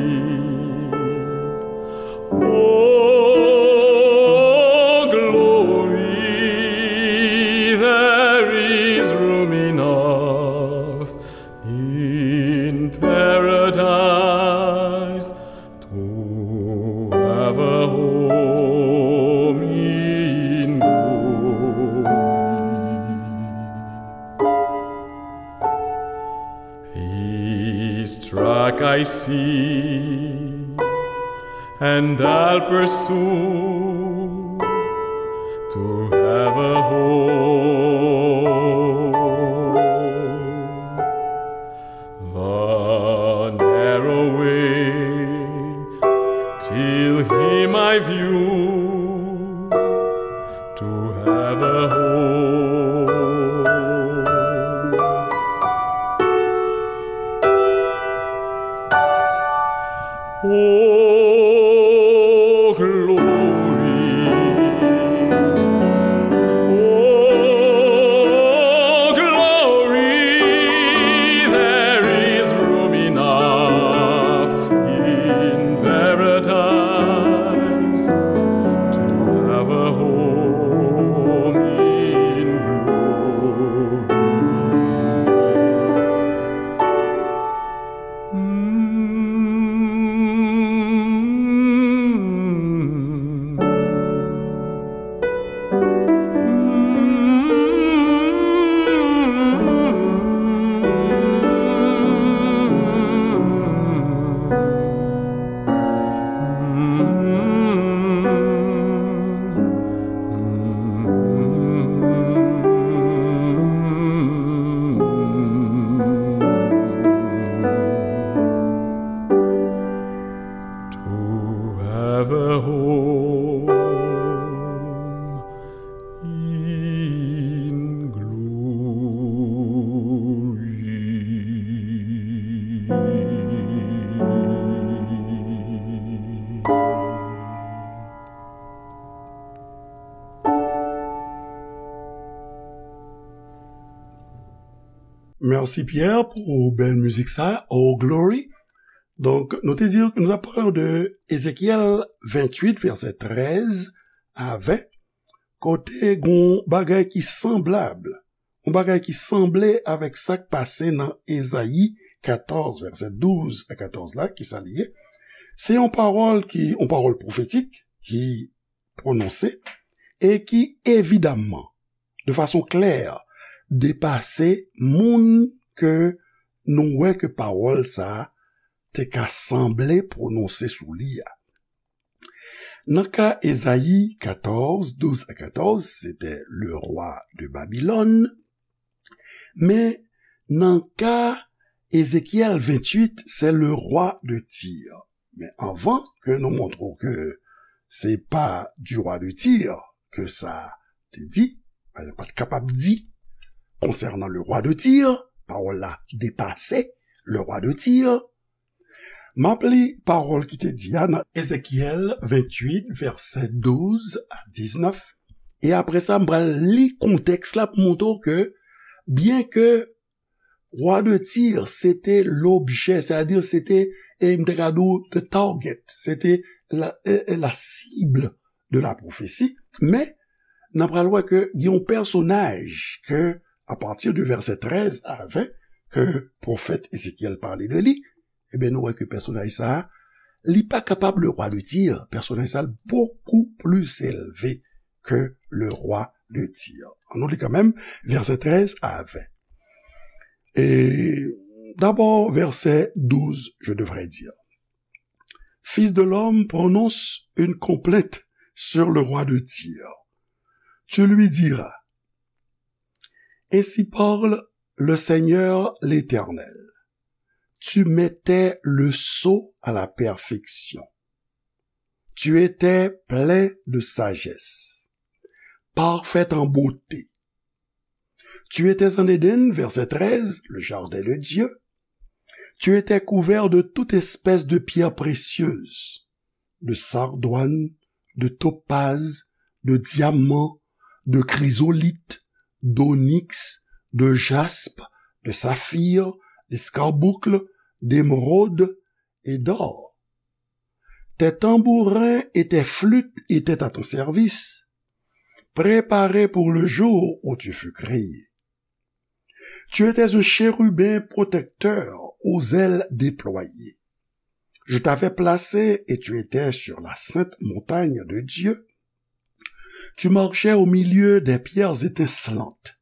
Oh, glory, there is room enough in paradise to have a home in glory. His track I see, and I'll pursue to have a home. The narrow way till him I view to have a home. Oh, glory. Oh, glory. There is room enough in paradise to have a home in glory. To have a home in glory. Mèsi Pierre pou bèl mizik sa, Oh Glory. Donk, nou te di, nou ap pale de Ezekyèl venntuit, vèsè trèz a ven, kote gon bagay ki sanblab, yon bagay ki sanble avèk sa k pase nan Ezayi katòz, vèsè douz a katòz la, ki sa li ye? Se yon pawòl ki, yon pawòl pwofetik ki pwononse e ki evidamman, de fason klè, depase moun ke nou wè ke pawòl sa a te ka sanble pwononse sou li a. Nan ka Ezayi katòz, douz a katòz, se te le roi de Babylone, men nan ka Ezekyèl venntuit, se le roi de Tyr. Men anvan ke nou montre w ke se pa du roi de Tyr ke sa te di, pa t kapab di konsènan le roi de Tyr, pawòl la depase le roi de Tyr, m ap li pawòl ki te di a nan Ezekyèl venntuit, vèsè douz a diznèf. E apre sa, m pral li kontèks la pou montre w ke, byen ke roi de Tyr, se te lobjè, sètadi se te, e m te ka di w, the target, se te la, e, e, la cible de la prophétie. Men, n ap pral wè ke gen yon pèsonaj ke, apati de vèsè trèz a ven, ke pwofèt Ezekyèl pale de li, ebyen, nou wè ke pèsonaj sa a, li pa kapab le roi de Tyr. Pèsonaj sa a, beaucoup plus élevé que le roi de Tyr. Ann nou li kanmenm, vèsè trèz a ven. Et d'abord, verset douze, je devrais dire. Fils de l'homme, prononce une complainte sur le roi de Tyr. Tu lui diras, ainsi parle le Seigneur l'Éternel. Tu mettais le sceau à la perfection. Tu étais plein de sagesse, parfait en beauté. Tu étais en Éden, verset treize, le jardin de Dieu. Tu étais couvert de toute espèce de pierres précieuses, de sardoine, de topaze, de diamant, de chrysolithe, d'onyx, de jaspe, de saphir, d'escarboucle, d'émeraude et d'or. Tes tambourins et tes flûtes étaient à ton service, préparés pour le jour où tu fus créé. Tu étais un chérubin protecteur aux ailes déployées. Je t'avais placé et tu étais sur la sainte montagne de Dieu. Tu marchais au milieu des pierres étincelantes.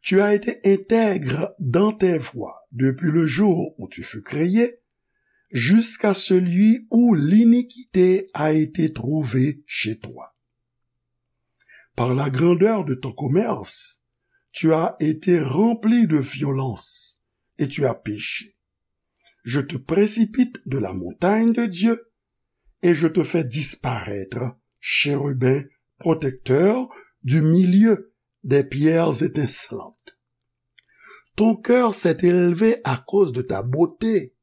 Tu as été intègre dans tes voies depuis le jour où tu fus créé, jusqu'à celui où l'iniquité a été trouvée chez toi. Par la grandeur de ton commerce, tu as été rempli de violence et tu as péché. Je te précipite de la montagne de Dieu et je te fais disparaître, chérubin protecteur, du milieu des pierres étincelantes. Ton cœur s'est élevé à cause de ta beauté.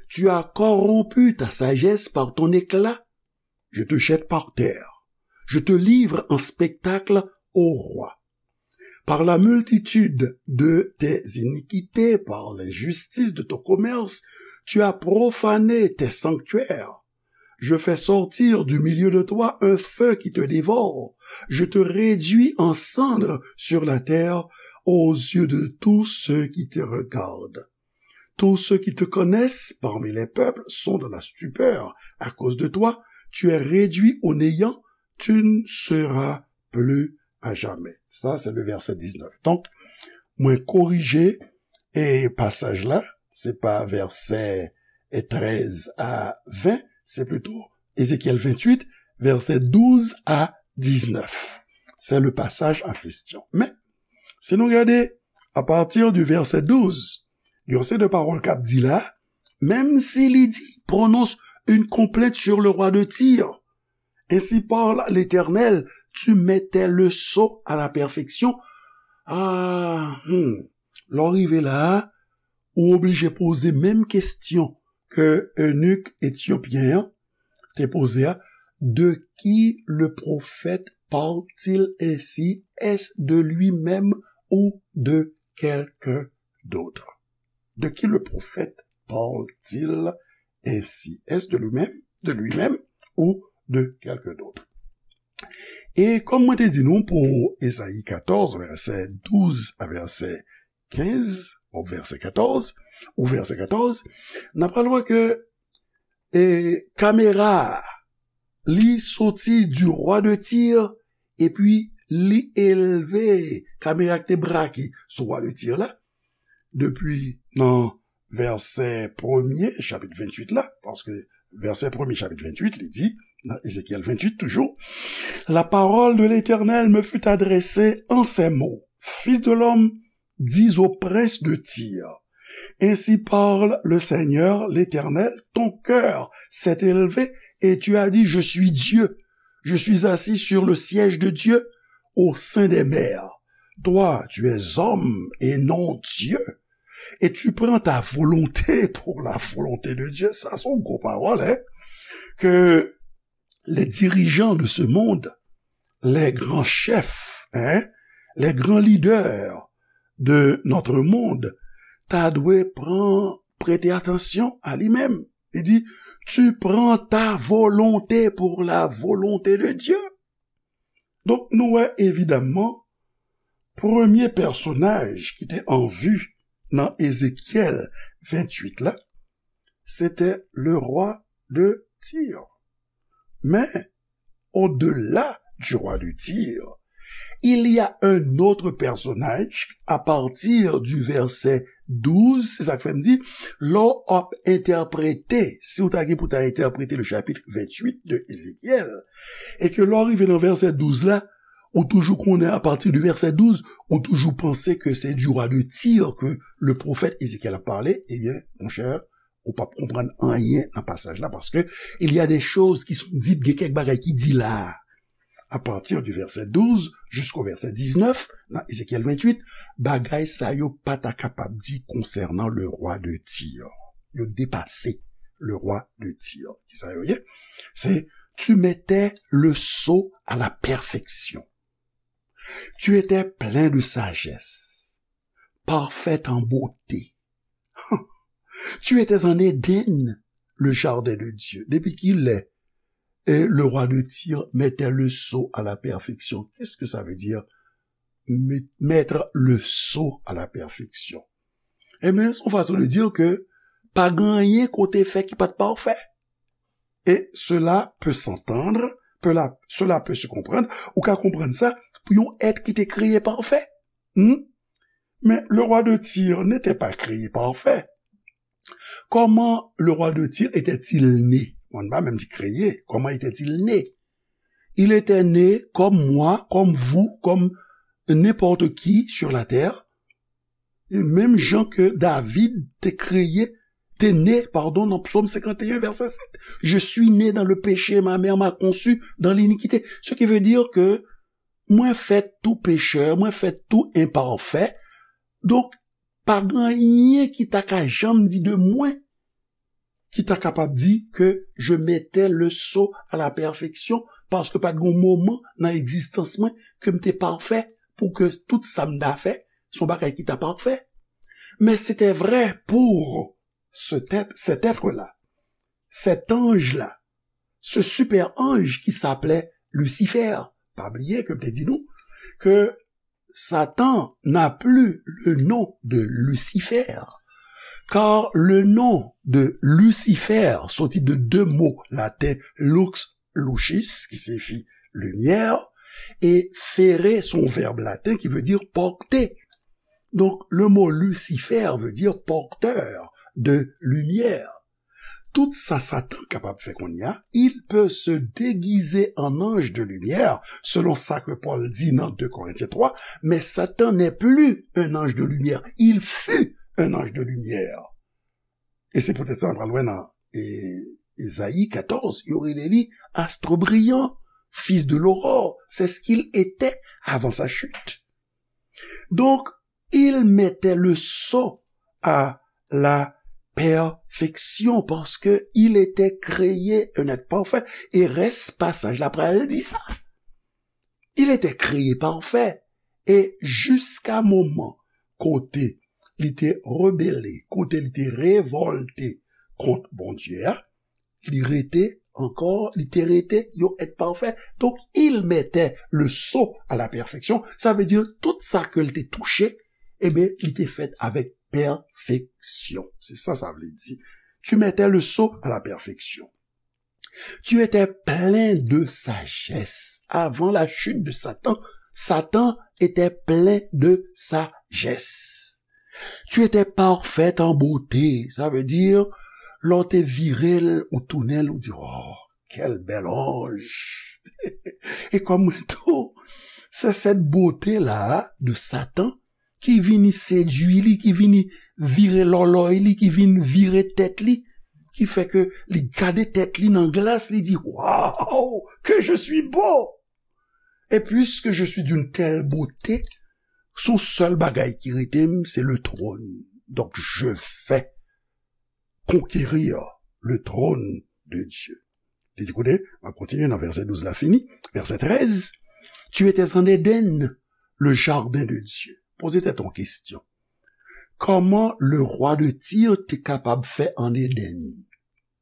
Tu as corrompu ta sagesse par ton éclat. Je te jette par terre. Je te livre en spectacle au roi. Par la multitude de tes iniquités, par l'injustice de ton commerce, tu as profané tes sanctuaires. Je fais sortir du milieu de toi un feu qui te dévore. Je te réduis en cendres sur la terre aux yeux de tous ceux qui te regardent. Tous ceux qui te connaissent parmi les peuples sont dans la stupeur à cause de toi. Tu es réduit au néant, tu ne seras plus à jamais. Ça, c'est le verset dix-neuf. Donk, mwen korije e pasaj la, se pa vèsè trèz a ven, se plito Ezekyèl venntuit, vèsè douz a diznèf. Se le pasaj an kesyon. Men, si nou gade, apati di vèsè douz, gen yon seri de pawòl k ap di la, menm si li di, prononce une complainte sur le roi de Tyr. Ainsi parle l'Éternel, tu mettais le sceau à la perfection. Ah, hmm. Lè w rive la a, ou oblije poze menm kesyon ke eunik etyopyen an te poze a, de qui le prophète parle-t-il ainsi? Est-ce de lui-même ou de quelqu'un d'autre? De qui le prophète parle-t-il ainsi. Est-ce de lui-même, de lui-même ou de quelqu'un d'autre? E kòm mwen te di nou pou Ezayi katòz, vèsè douz a vèsè kenz, ou vèsè katòz, ou vèsè katòz, n ap pral wè ke e, kamera a, li soti du roi de Tyr, epi li elve kamera ki te brake sou roi de Tyr la, depi nan vèsè premye, chapit venntuit la, paske vèsè premye, chapit venntuit, li di, nan Ezekyèl venntuit toujou, la parole de l'Éternel me fut adressée en ces mots. Fils de l'homme, dis au prince de Tyr, ainsi parle le Seigneur l'Éternel, ton cœur s'est élevé et tu as dit, je suis Dieu, je suis assis sur le siège de Dieu au sein des mers. Toi, tu es homme et non Dieu, et tu prends ta volonté pour la volonté de Dieu. Sa se yon gwo pawòl, hein? Ke les dirigeants de ce monde, les grands chefs, hein, les grands leaders de notre monde, ta dwe pran, prete atansyon a li menm. Li di, tu prends ta volonté pour la volonté de Dieu. Donk, nou wè evidamman, premye pèsonaj ki te an vi nan Ezekyèl venntuit la, se te le roi de Tyr. Men, au-delà du roi de Tyr, il y a un autre personnage à partir du verset douz, se sa k fè m di, lè w ap entèprete, si w ta gen pou ta entèprete le chapitre vingt-huit de Ezekyèl, e ke lè w rive nan vèsè douz la, ou toujou konnen apati de vèsè douz, ou toujou panse ke se du roi de Tyr ke le pwofèt Ezekyèl ap pale, ebyen, monchè, ou p ap konprann anyen nan pasaj la, paske il y a des choses qui sont dites, gen kèk bagay ki di la a. À partir du verset douze jusqu'au verset dix-neuf, nan Ezekyèl venntuit, bagay sa yo pa ta kapab di konsènan le roi de Tyr. Yo depase le roi de Tyr. Ki sa yo ye? Se, tu mettais le sceau à la perfection. Tu étais plein de sagesse, parfait en beauté. Tu étais en Éden, le jardin de Dieu. Depi kilè, eh, le roi de Tyr mettait le sceau à la perfection? Qu'est-ce que ça veut dire, met-, mettre le sceau à la perfection? Ebyen, se yon fason de dire ke pa gen anyen ke w te fè ki pa t pafè. Et cela peut s'entendre, peut la, cela peut se comprendre, ou ka konprann sa pou yon èt ki te kreye pafè. Hmm? Mais le roi de Tyr n'était pas créé parfait. Comment le roi de Tyr était-il né? On va même dire créé. Comment était-il né? Il était né comme moi, comme vous, comme n'importe qui sur la terre. Menm jan ke David te kreye, te ne, pardon, nan Psaume cinquante et un, verset sept. Je suis né dans le péché, ma mère m'a conçu dans l'iniquité. Ce qui veut dire que mwen fèt tou pechè, mwen fèt tou enpafè. Donk, pa gen anyen ki ta ka janm di de mwen ki ta kapab di ke je mettais le sceau à la perfection, paske pa t gen moman nan egzistans mwen ke m te pafè pou ke tout sa m ta fè, se yon bagay ki ta pafè. Mais c'était vrai pour cet être, cet être-là, cet ange-là, ce super ange qui s'appelait Lucifer. Pa bliye ke m te di nou ke Satan n'a plus le nom de Lucifer, car le nom de Lucifer soti de de mo laten, lux, lucis, ki siyifi limyè, e fere se yon vèb laten ki vle di pòte. Donk, le mo Lucifer veut dire porteur de lumière. Tout sa Satan kapab fè kounye a, il peut se déguiser en ange de lumière, selon sa ke Pòl di nan de Korentyen twa, mais Satan n'est plus un ange de lumière, il fut un ange de lumière. E se poutèt sa, nou pral wè nan, e, Ezayi katòz, yo rele li astre brillant, fils de l'aurore, c'est ce qu'il était avant sa chute. Donk, il mettait le sceau à la perfection parce que il était créé un être parfait. E rès pasaj la pral di sa. Il était créé parfait. E jiska moman kote li te rebele, kote li te revòlte kont Bondye a, li rete ankò, li te rete yon èt pafè. Donk, il mettait le sceau à la perfection. Sa vle di, tout sa ke l te touche, ebyen, li te fèt avèk pèfeksyon. Se sa sa vle di. Tu mettais le sceau à la perfection. Tu étais plein de sagesse. Avant la chute de Satan, Satan était plein de sagesse. Tu étais parfaite en beauté. Sa vle di, lè w te vire l, ou tounen l, ou di, oh, quel bel ange. E kòm mwen tou, se cette beauté-là de Satan ki vini sedui li, ki vini vire lòlòy li, ki vin vire tèt li, ki fè ke li gade tèt li nan glas, li di, waouh, que je suis beau! Et puisque je suis d'une telle beauté, son sèl bagay ki rete m, se le trône. Donc, je vais conquérir le trône de Dieu. Li di, koute, m ap kontinye nan vèsè douz la fini. Vèsè trèz, tu étais en Éden, le jardin de Dieu. Poze tèt ou kesyon. Kòman le roi de Tyr te kapab fè an Éden?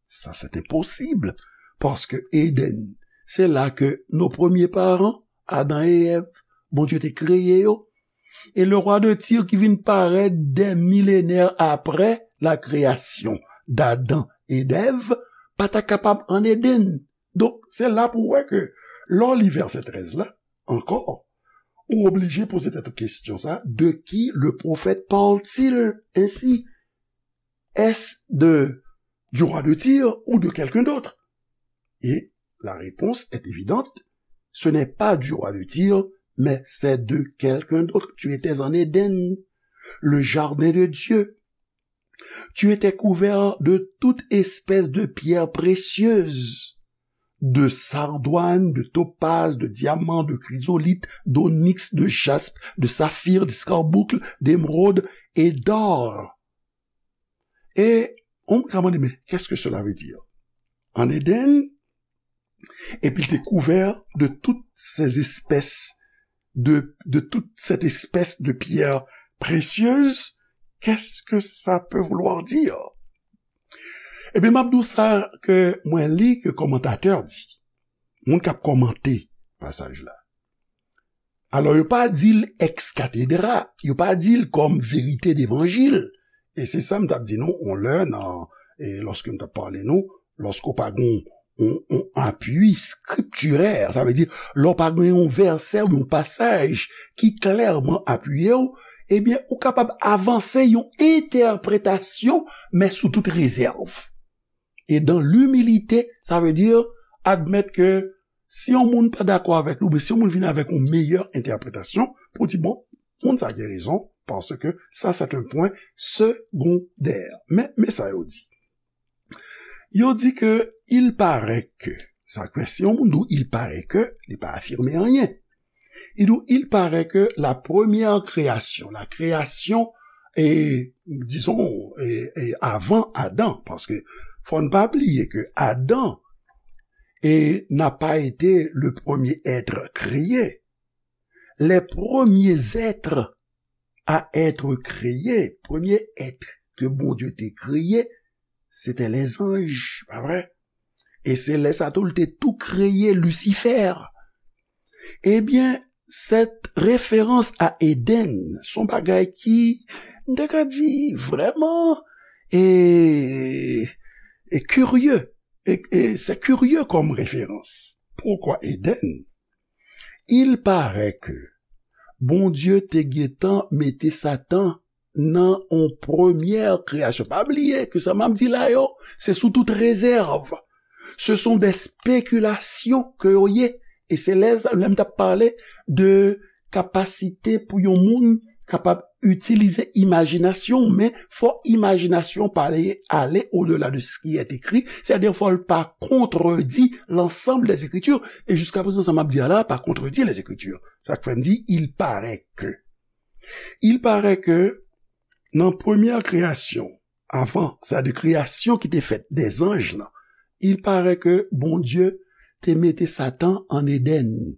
Sa, se enposib, paske Éden, se la ke nos premiers parents, Adan e Èv, Bondye te kreye yo. E le roi de Tyr ki vin parèt des millénaires après la création d'Adam et d'Ève, pa ta kapab an Éden. Donk, se la pou w wè ke lè w li vèsè trèz la, ankò, ou oblije poze tèt ou kesyon sa, de qui le prophète parle-t-il ainsi? Est-ce de, du roi de Tyr ou de quelqu'un d'autre? Et la réponse est évidente, ce n'est pas du roi de Tyr, mais c'est de quelqu'un d'autre. Tu étais en Éden, le jardin de Dieu. Tu étais couvert de toute espèce de pierres précieuses, de sardoine, de topaze, de diamant, de chrysolithe, d'onyx, de jaspe, de saphir, d'escarboucle, d'émeraude et d'or. E on moun ka mande, mais qu'est-ce que cela veut dire? En Éden, et puis il était couvert de toutes ces espèces de, de toute cette espèce de pierre précieuse. Qu'est-ce que ça peut vouloir dire? Ebyen, m ap di w sa ke mwen li ke kòmantatè di. Moun k ap kòmante pasaj la. Alò, yo pa di l ex cathedra, yo pa di l kòm verite devanjil. E se sa m t ap di nou, on lè, nan, e lòske m t ap pale nou, lòske w pa gen yon, yon apui skriptirè, sa vle di, lè w pa gen yon vèsè ou yon pasaj ki klèman apiye w, ebyen, ou kapab avanse yon entèpretasyon, men sou tout rezèv. E dans l'humilité, sa vle di, admèt ke si yon moun pa dakò avèk nou, oubyen si yon moun vin avèk yon meyè entèpretasyon, pou di, bon, moun sa gen rezon, paske sa, c'est un point secondaire. Men, men sa yo di. Yo di ke il paraît que, sa vle di, si yon moun di w il paraît que, li pa afime anyen. Il, il paraît que la première création, la création, et, disons, et, et avant Adam, paske fò n pa bliye ke Adan et n'a pas été le premier être créé. Les premiers êtres à être créés, premye èt ke Bondye te kreye, se te lèzanj, pa vre? E se lè sa tou, l te tou kreye Lisifè. Ebyen, cette référence à Éden, se yon bagay ki, m te ka di, vrèman, e, e kirye. E, e se kirye kòm referans. Poukwa Éden? Il paraît que Bondye te gentan mete Satan nan yon premyè kreyasyon. Pa bliye ke sa m ap di la yo, se sou tout rezèv. Ce sont des spéculations ke yo ye. E se lè, lè m t ap pale de kapasite pou yon moun kapab itilize imajinasyon, men fò imajinasyon pa ale, ale au-delà de ce qui est écrit, c'est-à-dire fò l pa kontredi l'ensemble des Écritures. E jiska prezan, sa m ap di a la, pa kontredi les Écritures. Sa k fè m di, il paraît que. Il paraît que nan premyè kreyasyon, avan, sa de kreyasyon ki te fèt dè zanj lan, il paraît que Bondye te mete Satan an Éden.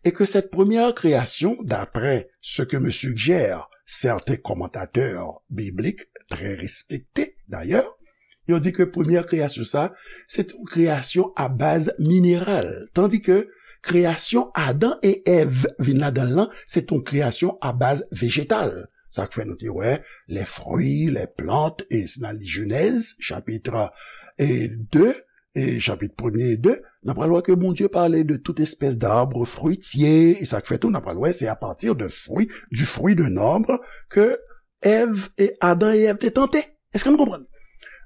Et que cette première création, d'après ce que me suggèrent certains commentateurs bibliques, très respectés d'ailleurs, Yo di ke premyè kreyasyon sa, se te yon kreyasyon a baz mineral. Tandi ke kreyasyon Adan e Èv vin ladan l lan, se te yon kreyasyon a baz vejetal. Sa k fè nou te wè les fruits, les plantes, e si n al li Jenèz, chapit e de, e chapit premye e de, n ap pral wè ke Bondye pale de tout espès d'arbre fruitier, e sa k fè tou, n ap pral wè, se à partir de fruit, du fruit d'un arbre, ke Èv e Adan e Èv te tante. Èske nou konprann?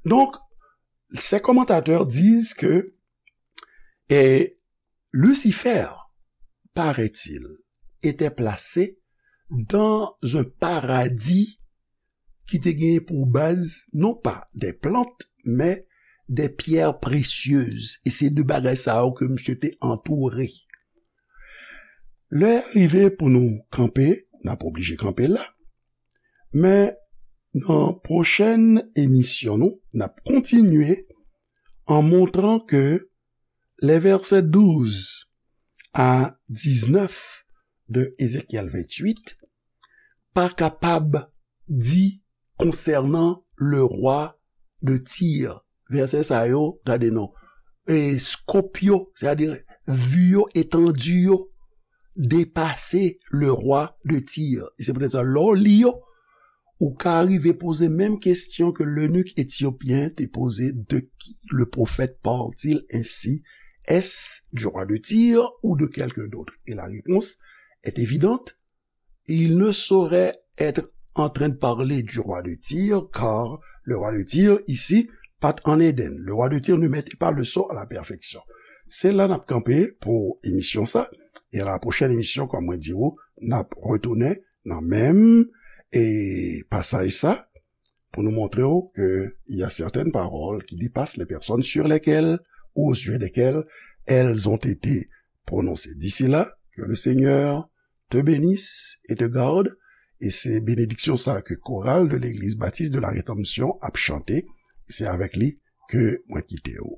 Donc, ces commentateurs disent que, eh, Lucifer, paraît-il, était placé dans un paradis ki te genyen pou baz, non pa des plantes, mais des pierres précieuses. E se de bagay sa yo ke misye te antoure. Lè rive pou nou kanpe, n ap oblije kanpe la. Men nan pwochèn emisyon nou, n ap kontinye an montran ke les versets douze à dix-neuf de Ézéchiel vingt-huit pa kapab di konsènan le roi de Tyr. Vèsè sa yo, gade non, e, scope yo, sètadi vi yo, etandi yo, depase le roi de Tyr. E se poutèt sa, lè w li yo, ou ka rive poze menm kesyon ke lenik etyopyen te poze, de qui le prophète parle-t-il ainsi? Est-ce du roi de Tyr ou de quelqu'un d'autre? Et la réponse est évidente, il ne saurait être en train de parler du roi de Tyr, car le roi de Tyr, ici, pas en Éden. Le roi de Tyr ne mettait pas le sceau à la perfection. Se la n ap kanpe pou emisyon sa. E a la pwochèn emisyon, kòm mwen di w, n ap retounen nan menm e pasaj sa pou nou montre w ke il y a certaines paroles qui dépassent les personnes sur lesquelles ou au sujet desquelles elles ont été prononcées. D'ici là, que le Seigneur te bénisse et te garde. E se benediksyon sa ke koral de Legliz Batis de la Redanmsyon ap chante. E se avèk li ke mwen kite w.